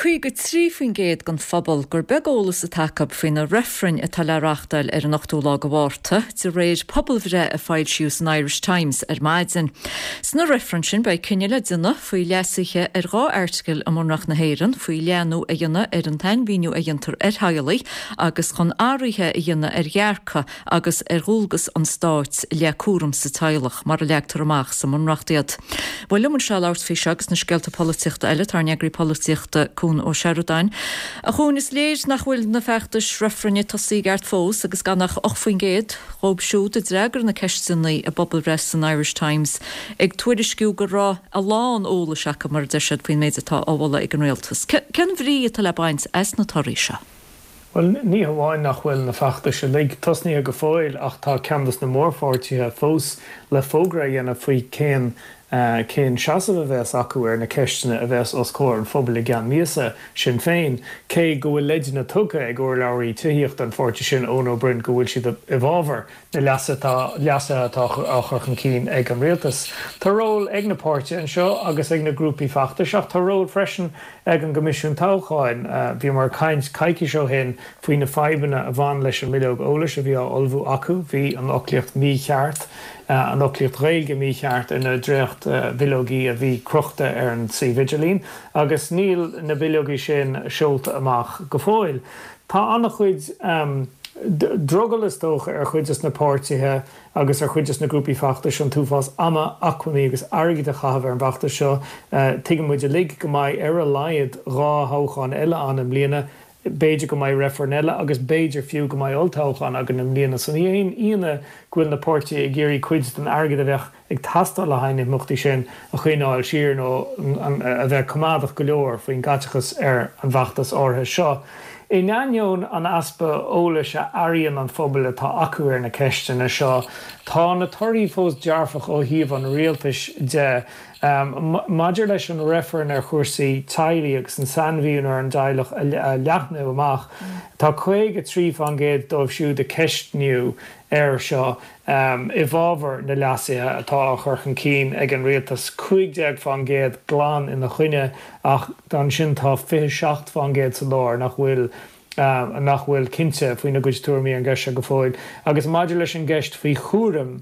53% den phobal gur beag eolas atá acu faoi na reifrinn atá le reáchtáil ar an 8ú lá de Mhárta, de réir pobalbhreith a foilsíodh san Irish Times ar maidin. Sna reifrinn sin beidh cinneadh le déanamh faoi leasuithe ar 2 airteagal i mBunreacht na hÉireann, faoi leathnú a dhéanamh ar an tsainmhíniú a dhéantar ar theaghlaigh agus chun athruithe a dhéanamh ar dhearcadh agus ar dhualgas an stáit i leith cúram sa teaghlach, mar a leagtar amach sa mBunreacht iad. Bhuel, liom anseo labhairt faoi seo agus na scéalta polaitíochta eile, tá ár n-eagraí polaitíochta, Cuan Ó Seireadáin. A Chuain, is léir nach bhfuil na feachtais reifrinn tosaithe i gceart fós agus gan ach 8% dhóibh siúd a d'fhreagair na ceisteanna i bpobalbhreith san Irish Times ag tuairisciú go raibh a lán eolais acu, mar a deir siad, faoin méid atá á mholadh ag an rialtas. Cén bhrí atá le baint as na torthaí seo? Bhuel, ní hamháin nach bhfuil na feachtais uilig tosnaithe go fóill ach tá ceann des na mórpháirtithe fós le fógra a dhéanamh faoi cén cén seasamh a bheas acu ar na ceisteanna a bheas os comhair an phobail i gceann míosa, Sinn Féin. Cé go bhfuil leideanna tugtha ag urlabhraí tithíochta an pháirtí sin, Eoin Ó Broin, go bhfuil siad i bhfabhar na leasuithe atá á chur chun cinn ag an rialtas. Tá ról ag na páirtithe anseo agus ag na grúpaí feachtais ach tá ról freisin ag an gCoimisiún Toghcháin. Bhíomar ag caint coicís ó shin faoi na fadhbanna a bhain leis an mbileog eolais a bhí á ullmhú acu. Bhí an fhoclaíocht mícheart, an fhoclaíocht Ghaeilge mícheart ar na dréacht-bhileogaí a bhí crochta ar an suíomh idirlín agus níl na bileogaí sin seolta amach go fóill. Tá an-chuid drogall is dócha ar chuid des na páirtithe agus ar chuid des na grúpaí feachtais an t-uafás ama, acmhainní agus airgid a chaitheamh ar an bhfeachtas seo. Tuigeann muid uilig go mbeidh ar a laghad 2 thoghchán eile ann i mbliana, b'fhéidir go mbeidh reifreann eile agus b'fhéidir fiú go mbeidh olltoghchán againn i mbliana. So ní haon ionadh go bhfuil na páirtithe ag iarraidh cuid den airgead a bheadh ag teastáil le haghaidh na himeachtaí sin a choinneáil siar nó a bheith coimeádach go leor faoin gcaiteachas ar an bhfeachtas áirithe seo. In ainneoin an easpa eolais a airíonn an pobal atá acu ar na ceisteanna seo, tá na torthaí fós dearfach ó thaobh an rialtais de. Maidir leis an reifreann ar chúrsaí teaghlaigh agus an sainmhíniú ar an dteaghlach a leathnú amach, tá 53% dóibh siúd a ceistníodh air seo i bhfabhar na leasuithe atá á chur chun cinn ag an rialtas, 15% glan ina choinne ach ansin tá 27% sa lár nach bhfuil nach bhfuil cinnte faoina gcuid tuairimí ar an gceist seo go fóill. Agus maidir leis an gceist faoi chúram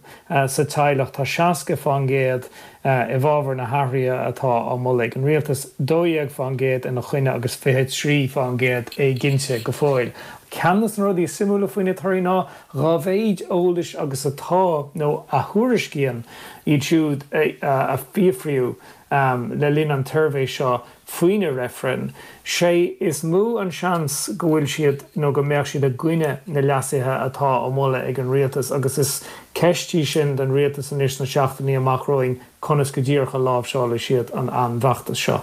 sa teaghlach, tá 60% i bhfabhar na hathruithe atá á moladh ag an rialtas, 12% ina choinne agus 23% éiginnte go fóill. Ceann de na rudaí is suimiúla faoi na torthaí ná Dá mhéid eolais agus atá, nó a thuairiscíonn iad siúd a fiafraíodh le linn an tsuirbhé seo faoi na reifrinn, sé is mó an seans go bhfuil siad nó go mbeadh siad i gcoinne na leasuithe atá á moladh ag an rialtas agus is ceist í sin don rialtas anois sna seachtainí amach romhainn conas go díreach a láimhseálfaidh siad an an bhfeachtas seo.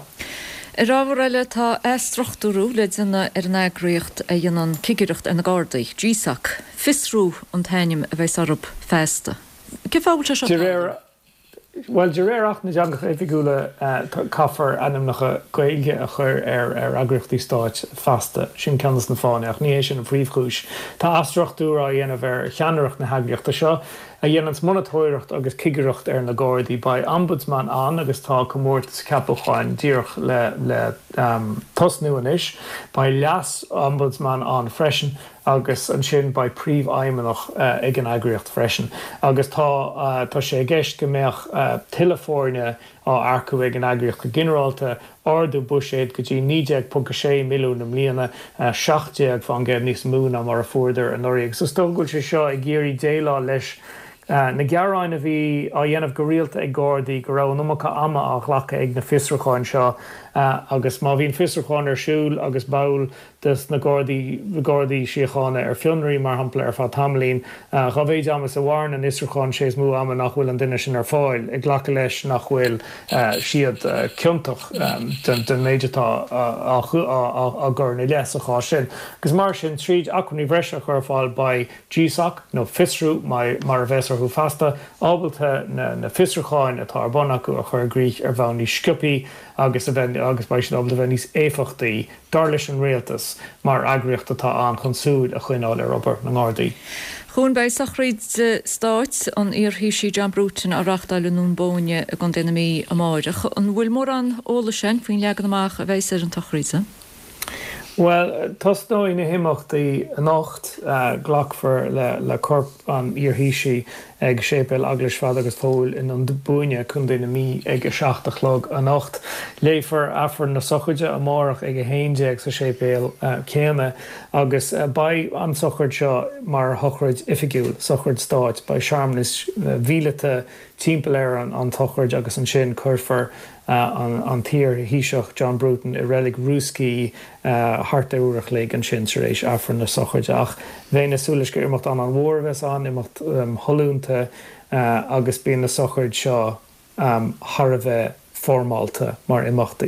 Ar ábhar eile, tá athstruchtúrú le déanamh ar an eagraíocht a dhéanann cigireacht ar na Gardaí, GSOC. Fiosrú an t-ainm a bheas orthu feasta. Cén fáth a bhfuil sé seo ag tarlú? Bhuel, de réir Acht na dTeangacha Oifigiúla, caithfear ainmneacha Gaeilge a chur ar eagraíochtaí stáit feasta. Sin ceann de na fáthanna, ach ní hé sin an phríomhchúis. Tá athstruchtúrú á dhéanamh ar cheannaireacht na heagraíochta seo. a dhéananns monatóireacht agus cigireacht ar na Gardaí. Beidh Ombudsman ann agus tá comórtas ceapúcháin díreach le le tosnú anois. Beidh leas-Ombudsman ann freisin agus ansin beidh príomhfheidhmeannach ag an eagraíocht freisin. Agus tá tá sé i gceist go mbeadh tuilleadh foirne á earcú ag an eagraíocht go ginearálta, ardú buiséid go dtí 19.6 milliún i mbliana, 17% níos mó ná mar a fuaireadar anuraidh. Agus is dócha go bhfuil sé seo ag iarraidh déileáil leis na gearáin a bhí á dhéanamh go rialta ag Gardaí go raibh an iomarca ama á ghlacadh ag na fiosrúcháin seo agus má bhíonn fiosrúchán ar siúl agus ball des na Gardaí, Gardaí Síochána ar fionraí, mar shampla, ar feadh tamaillín. Dhá mhéid ama is a mhaireann an fhiosrúchán, sé is mó ama nach bhfuil an duine sin ar fáil, ag glacadh leis nach bhfuil siad ciontach den méid atá á gcur ina leith sa chás sin. Agus mar sin, tríd acmhainní bhreise a chur ar fáil, beidh GSOC, nó Fiosrú mar a bheas orthu feasta, ábalta na fiosrúcháin atá ar bun acu a chur i gcrích ar bhonn níos sciobthaí agus a bheith agus beidh siad ábalta a bheith níos éifeachtaí. dar leis an rialtas, mar eagraíocht atá ann chun súil a choinneáil ar obair na nGardaí. Chuan beidh sochraid stáit an iar-Thaoisigh John Bruton á reáchtáil i nDún Bóinne i gContae na Mí amáireach. An bhfuil mórán eolais againn faoin leagan amach a bheas ar an tsochraid? Bhuel, tosnóidh na himeachtaí anocht. Glacfar le corp an iarThaoisigh ag Séipéal Eaglais Pheadair agus Phóil i nDún Búinne, Contae na Mí ag 7 a chlog anocht. Léifear Aifreann na sochraide amárach ag 11 sa séipéal céanna agus beidh an tsochraid seo mar shochraid oifigiúil, sochraid stáit. Beidh searmanas mhíleata timpeall ar an tsochraid agus ansin cuirfear an t-iar-Thaoiseach John Bruton i reilig Rúscaí thart ar uair a chloig ansin tar éis Aifreann na sochraide. Ach bheinn ag súil leis gur imeacht an-mhór a bheas ann, imeacht shollúnta agus bíonn na sochraid seo thar a bheith foirmeálta mar imeachtaí.